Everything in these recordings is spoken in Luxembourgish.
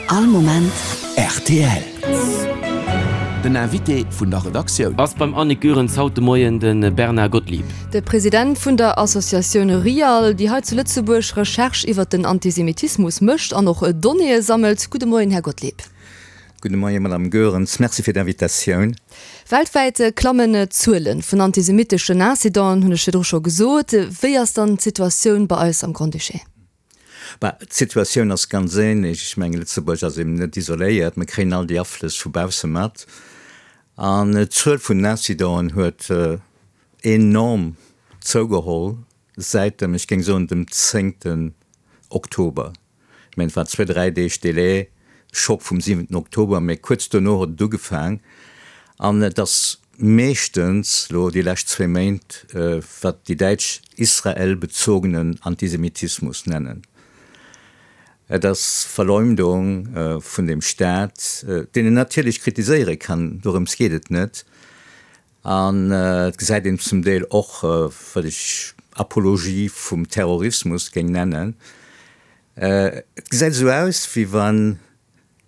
All Moment rtl. Den Invité vun der Redaktioun. Ass beim Annick Goerens haut de Moien de Bernard Gottlieb. De President vun der Associatioun RIAL, déi hei zu Lëtzebuerg Recherche iwwert den Antisemitismus mécht an och Donnéeë sammelt. Gudde Moien, Här Gottlieb. Gudde Moien, Madame Goerens. Merci fir d'Invitatioun. Weltwäit klammen d'Zuele vun antisemitteschen Incidenten, hunn ech virdru scho gesot. Wéi ass dann d'Situatioun bei eis am Grand-Duché? Bah, d'Situatioun ass ganz ähnlech. Ech mengen, Lëtzebuerg ass eben net isoléiert. Mir kréien all déi Aflëss vu bausse mat. An d'Zuel vun den Incidenten huet enorm zougeholl säit dem, ech géing soen, dem zéngten Oktober. Ech mengen, et war zwee, dräi Deeg Delai, Schock vum siwenten Oktober, mä kuerz dono huet et ugefaang. An et ass meeschtens elo déi lescht zwee Méint, wat déi Däitsch israelbezogenen Antisemitismus nennen. Et ass Verleumdung vun dem Staat, deen een natierlech kritiséiere kann, dorëms geet et net. An et gesäit een zum Deel och, wat ech Apologie vum Terrorismus géing nennen. Et gesäit esou aus, wéi wann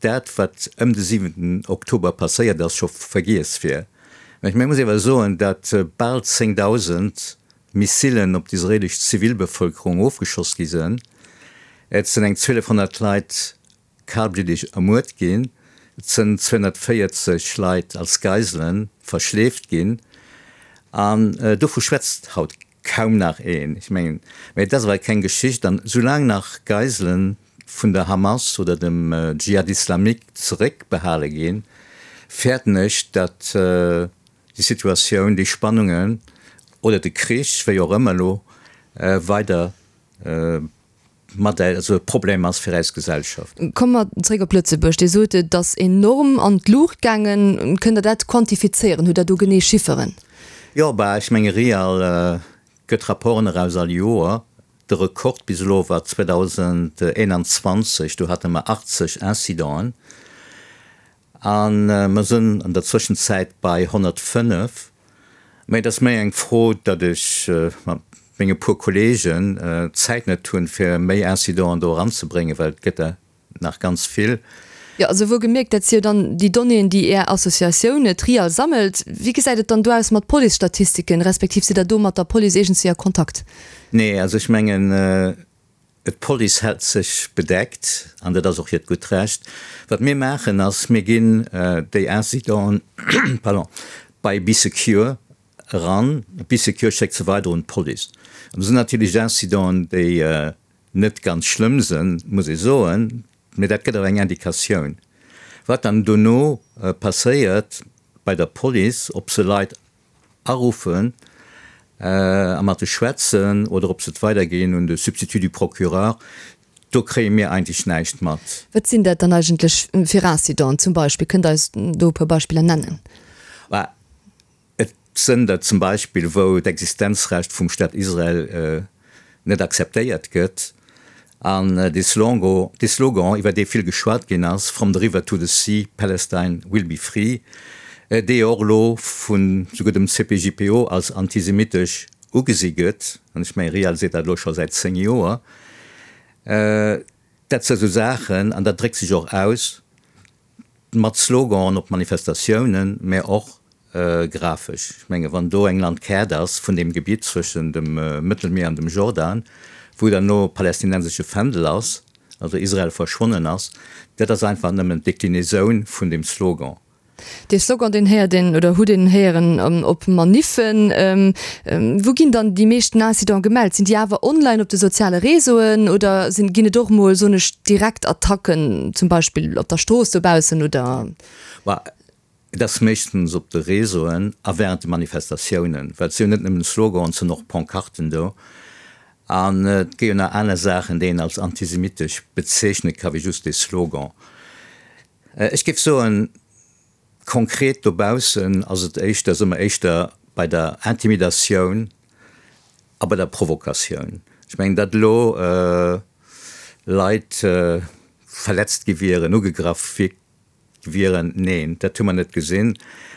dat, wat ëm de siwenten Oktober passéiert ass, scho vergiess wier. Mä ech muss awer soen, datt bal 10.000 Missilen op d'israelesch Zivilbevëlkerung ofgeschoss gi sënn. Et sënn eng 1.200 Leit kalbliddeg ermuert ginn, et sënn 240 Leit als Geisele verschleeft ginn. An dovu schwätzt haut kaum nach een. Ech mengen, mä et ass awer keng Geschicht. An soulaang nach Geiselen vun der Hamas oder dem Dschihad Islamique zeréckbehale ginn, fäerten ech, datt déi Situatioun, déi Spannungen oder de Krich, wéi och ëmmer elo, weider mat also e Problem ass fir eis Gesellschaft. Komme mer zréck op Lëtzebuerg. Dir sot, et ass enorm an d'Luucht gaangen. Kënnt Der dat quantifizéieren? Hutt Der do genee Chifferen? Jo, bah, ech menge Real gëtt Rapporten eraus all Joer. De Rekord bis elo war 2021, do hate mer 80 Incidenten. A mer sënn an der Zwëschenzäit bei 105. Mä et ass méi eng Fro, datt ech mat menge puer Kolleegen d'Zäit net hunn, fir méi Incidenten do eranzebréngen, well et gëtt der nach ganz vill. Jo, also wuel gemierkt, dat si jo dann déi Donnéeën, déi Är Associatioun Trial sammelt. Wéi gesäit et dann do aus mat Policestatistiken, respektiv sidd Der do mat der Police iergendswéi a Kontakt? Nee, also ech mengen, D'Police hält sech bedeckt, an dat ass och hiert gutt Recht. Wat mir maachen ass, mir ginn déi Incidenten, pardon, bei Bee Secure eran. Bee Secure schéckt se weider un d'Police. An do sinn natierlech Incidenten, déi net ganz schlëmm sënn, muss ee soen, mee dat gëtt awer eng Indikatioun. Wat dann dono passéiert bei der Police, ob se Leit aruffen a mat de schwätzen oder ob se et weiderginn un de Substitut du procureur, do kréie mir eigentlech näischt mat. Wat sinn dat dann eigentlech fir Incidenten zum Beispill? Kënnt Der eis do e puer Beispiller nennen? Bah, et sënn der zum Beispill, wou d'Existenzrecht vum Staat Israel net akzeptéiert gëtt an dee Slogan, dee Slogan, iwwer dee vill geschwat ginn ass, From the river to the sea, Palestine will be free, dee jo och elo vun souguer dem CPJPO als antisemitesch ugesi gëtt, an ech mengen, RIAL seet dat elo scho säit 10 Joer, dat si sou Saachen, an dat dréckt sech och aus Mat Sloganen op Manifestatiounen, mä och grafesch. Ech menge wann do eng Landkaart ass vun deem Gebitt zwëschen dem Mëttelmier an dem Jordan, wou dann elo palästinensesche Fändel ass, also Israel verschwonnen ass, dat ass einfach nëmmen d'Deklinaisoun vun deem Slogan. Dee Slogan, deen héiert een oder hutt een héieren op Maniffen. Wou ginn dann déi meeschten Incidenten gemellt? Sinn déi awer online op de soziale Réseauen oder sinn, ginn et och mol, soen ech, direkt Attacken, zum Beispill op der Strooss dobaussen oder? Bah, et ass meeschtens op de Réseauen a während de Manifestatiounen, well et si jo net nëmmen Sloganen, et sinn och Pancarten do. An et gi jo nach aner Saachen, déi een als antisemitesch bezeechne ka wéi just dee Slogan. Ech géif soen, Konkret dobaussen ass et éischter, si mer éischter bei der Intimidatioun a bei der Provokatioun. Ech mengen, datt elo Leit verletzt gi wieren, ugegraff wieren, neen, dat hu mer net gesinn.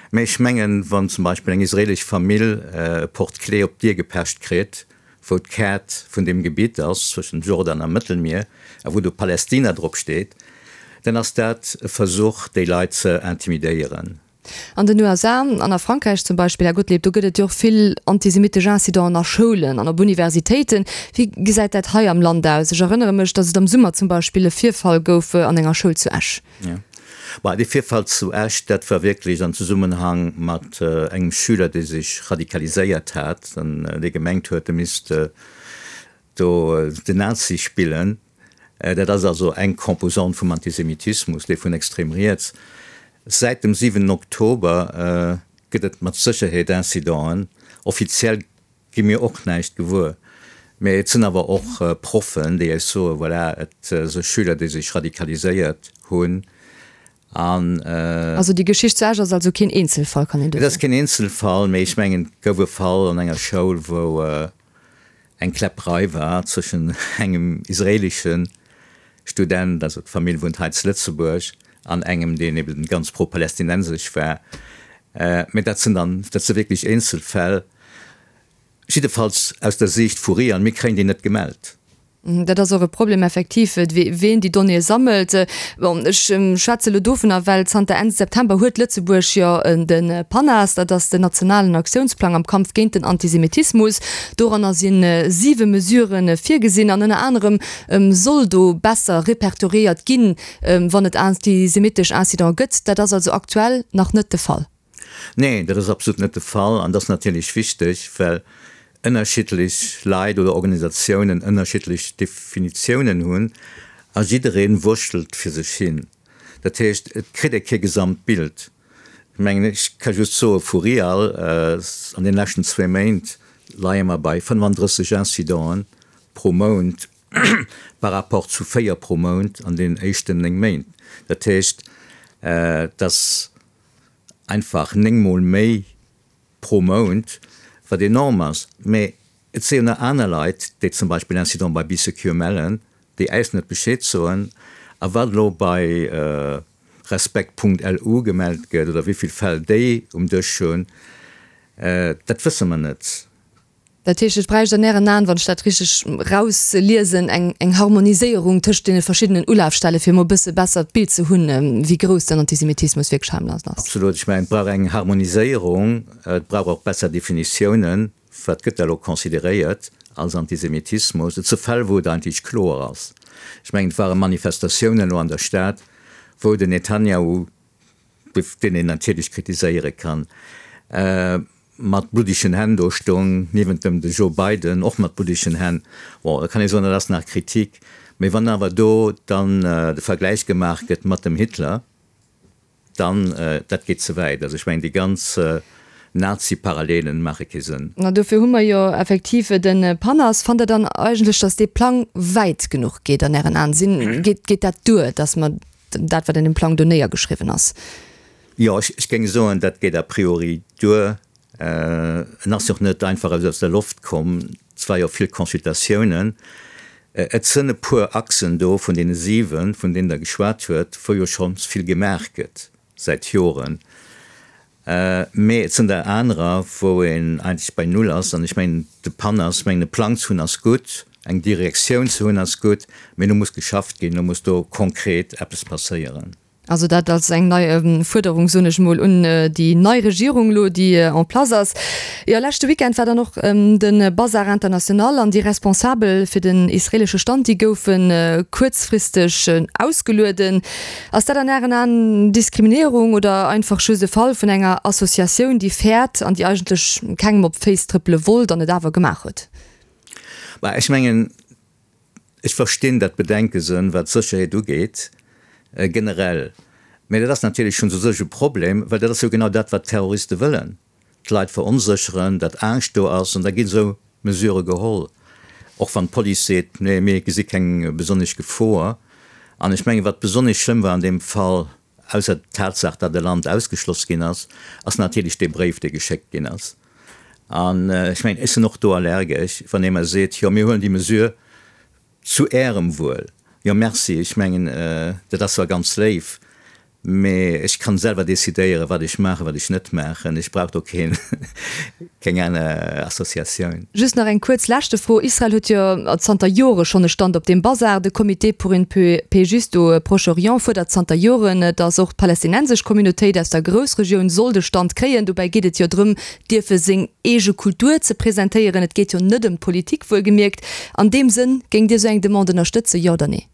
Mä ech mengen, wann zum Beispill eng israelesch Famill e Porte-clés op d'Dier gepecht kritt, wou d'Kaart vun deem Gebitt ass zwëschen Jordan a Mëttelmier a wou do Palästina drop steet. Dann ass dat e Versuch, déi Leit ze intimidéieren. An den USA an a Frankräich zum Beispill, Här Gottlieb, do gëtt et jo och vill antisemittesch Incidenten a Schoulen an op Universitéiten. Wéi gesäit dat hei am Land aus? Ech erënnere mech, datt et am Summer zum Beispill e Virfall gouf an enger Schoul zu Esch. Jo, bah, dee Virfall zu Esch, dat war wierklech am Zesummenhang mat engem Schüler, dee sech radikaliséiert hat an dee gemengt huet, e misst do den Nazi spillen. Dat ass also eng Composante vum Antisemitismus, dee vun extrem riets. Säit dem 7 Oktober gëtt et mat Sécherheet Incidenten. Offiziell gi mir och näischt gewuer, mä et sinn awer och Proffen, déi eis soen, voilà, et si Schüler, déi sech radikaliséiert hunn an. Also déi Geschicht zu Esch ass also keen Eenzelfall, kann een do soen? Et ass keen Eenzelfall, mä ech mengen, et gouf e Fall an enger Schoul, wou eng Kläpperei war zwëschen engem israelische Student, also d'Famill wunnt hei zu Lëtzebuerg, an engem, deen eben ganz pro-palästinensesch war. Mä dat sinn dann, dat si wierklech Eenzelfäll, jiddefalls aus der Siicht vu RIAN. Mir kréien déi net gemellt. Dat ass och e Problem effektiv, ween déi Donnéeë sammelt. Bon, ech schwätze elo dovunner, well zanter Enn September huet Lëtzebuerg jo de PANAS, dat ass den nationalen Aktiounsplang am Kampf géint den Antisemitismus. Doranner si siwe Mesurë virgesinn an ënner anerem soll do besser repertoriéiert ginn, wann et antisemitesch Incidente gëtt. Dat ass also aktuell nach net de Fall. Nee, dat ass absolut net de Fall. An dat ass natierlech wichteg, well ënnerschiddlech Leit oder Organisatiounen ënnerschiddlech Definitiounen hunn a jidderee wurschtelt fir sech hin. Dat heescht, et kritt ee kee Gesamtbild. Ech mengen, ech ka just soe vu RIAL, an deene leschten zwee Méint leie mer bei 35 Incidenten pro Mount par rapport zu véier pro Mount an deenen éischten néng Méint. Dat heescht, et ass einfach néngmol méi pro Mount, wat enorm ass. Mä et si jo nach aner Leit, déi zum Beispill Incident bei Bee Secure mellen, déi äis net Bescheed soen. A wat elo bei Respekt.lu gemellt gëtt oder wéi vill Fäll déi um Dësch hunn, dat wësse mer net. Dat heescht, et bräicht an Ären Aen, wann ech dat richteg erausliesen, eng eng Harmoniséierung tëscht deene verschiddenen Ulafstelle fir emol e bësse besser d'Bild ze hunn, wéi grouss den Antisemitismus wierklech hei am Land ass. Absolut. Ech mengen, et brauch eng Harmoniséierung, et brauch och besser Definitiounen, wat gëtt da elo consideréiert als Antisemitismus. Et si Fäll, wou et eigentlech kloer ass. Ech mengen, et ware Manifestatiounen elo an der Stad, wou den Netanjahu, deen een natierlech kritiséiere kann, mat bluddegen Hänn do stoung, niewent dem de Joe Biden, och mat bluddegen Hänn. Bon, da kann ee soen, dat ass nach Kritik. Mee wann awer do dann de Vergläich gemaach gëtt mat dem Hitler, dann, dat geet ze wäit. Also ech mengen, déi ganz Nazi-Parallelen maache kee Sënn. Mä dofir hu mer jo effektiv de PANAS. Fannt Der dann eigentlech, datt dee Plang wäit genuch geet an Ären Aen? Sinn, geet, geet dat duer, datt mer dat, wat an deem Plang do néiergeschriwwen ass? Jo, ech géing soen, dat geet a priori duer. En ass jo och net einfach aus der Loft komm. Et war jo vill Consultatiounen. Et sënn e puer Achsen do vun deene 7, vun deenen Der geschwat huet, wou jo schonns vill gemaach gëtt säit Joren. Mee et sënn der anerer, wou een eigentlech bei Null ass. An ech mengen, de PAN ass, ech mengen, e Plang ze hunn ass gutt, eng Direktioun ze hunn ass gutt, mee elo muss geschafft ginn, elo muss do konkret eppes passéieren. Also dat als eng nei Fuerderung, soen ech emol, un déi nei Regierung elo, déi en place ass. Jo, leschte Weekend war dann och de Bazar International an déi Responsabel fir den israelesche Stand, déi goufe kuerzfristeg ausgelueden. Ass dat an Ären Aen Diskriminéierung oder einfach just e Fall vun enger Associatioun, déi fäert an déi eigentlech kengem op d'Féiss trëppele wollt an et awer gemaach huet? Bah, ech mengen, Ech verstinn dat Bedenkesen, wat d'Sécherheet ugeet, generell. Mä dat ass natierlech schonns u sech e Problem, well dat ass jo genau dat, wat d'Terroriste wëllen, d'Leit veronsécheren, datt Angscht do ass, an da ginn esou Mesurë geholl, och wann d'Police seet, nee, mir gesi keng besonnesch Gefor. An ech mengen, wat besonnesch schlëmm war an deem Fall, Ausser d'Tatsaach, datt e Land ausgeschloss ginn ass, ass natierlech dee Bréif, dee geschéckt ginn ass. An ech mengen, ech sinn och do allergesch, wann ee mer seet, jo mir huelen déi Mesure zu Ärem Wuel. Jo, merci, ech mengen, dat ass zwar ganz léif. Mee ech kann selwer decidéieren, wat ech maachen, wat ech net maachen. Ech brauch do keen, keng aner Associatioun. Just nach eng kuerz leschte Fro, Israel huet jo zanter Jore schonn e Stand op deem Bazar. De Comité pour une paix juste au Proche-Orient fuerdert zanter Joren, datt och d'palästinensesch Communautéit aus der Groussregioun soll de Stand kréien. Dobäi geet et jo drëm, dierfe seng eege Kultur ze presentéieren. Et geet jo net ëm d'Politik, wuelgemierkt. An deem Sënn, géingt Dir esou eng Demande ënnerstëtzen, jo oder nee?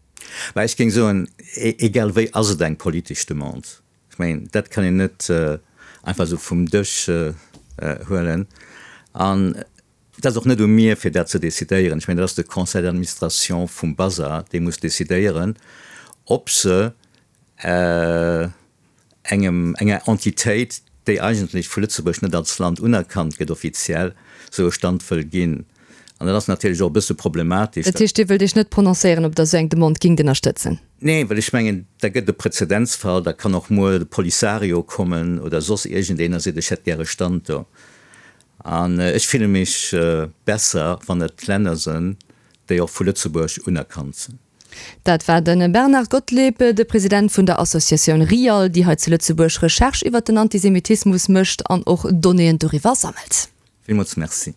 Mä ech géing soen, egal wéi ass et eng politesch Demande. Ech mengen, dat kann een net einfach esou vum Dësch huelen. An et ass och net u mir, fir dat ze decidéieren. Ech mengen, dat ass de Conseil d'administration vum Bazar, dee muss decidéieren, ob se engem, enger Entitéit, déi eigentlech vu Lëtzebuerg net als Land unerkannt gëtt offiziell, esou e Stand wëll ginn. An dat ass natierlech och e bësse problematesch. Dat heescht, Dir wëllt Iech net prononcéieren, ob Der esou eng Demande gingt ënnerstëtzen? Nee, well ech mengen, da gëtt et e Präzedenzfall, da kann och muer de Polisario kommen oder soss iergendeen a seet, ech hätt gär e Stand do. An ech fille mech besser, wann et Länner sënn, déi och vu Lëtzebuerg unerkannt sinn. Dat war de Bernard Gottlieb, de President vun der Associatioun RIAL, déi hei zu Lëtzebuerg Recherche iwwer den Antisemitismus mécht an och Donnéeën doriwwer sammelt. Villmools Merci.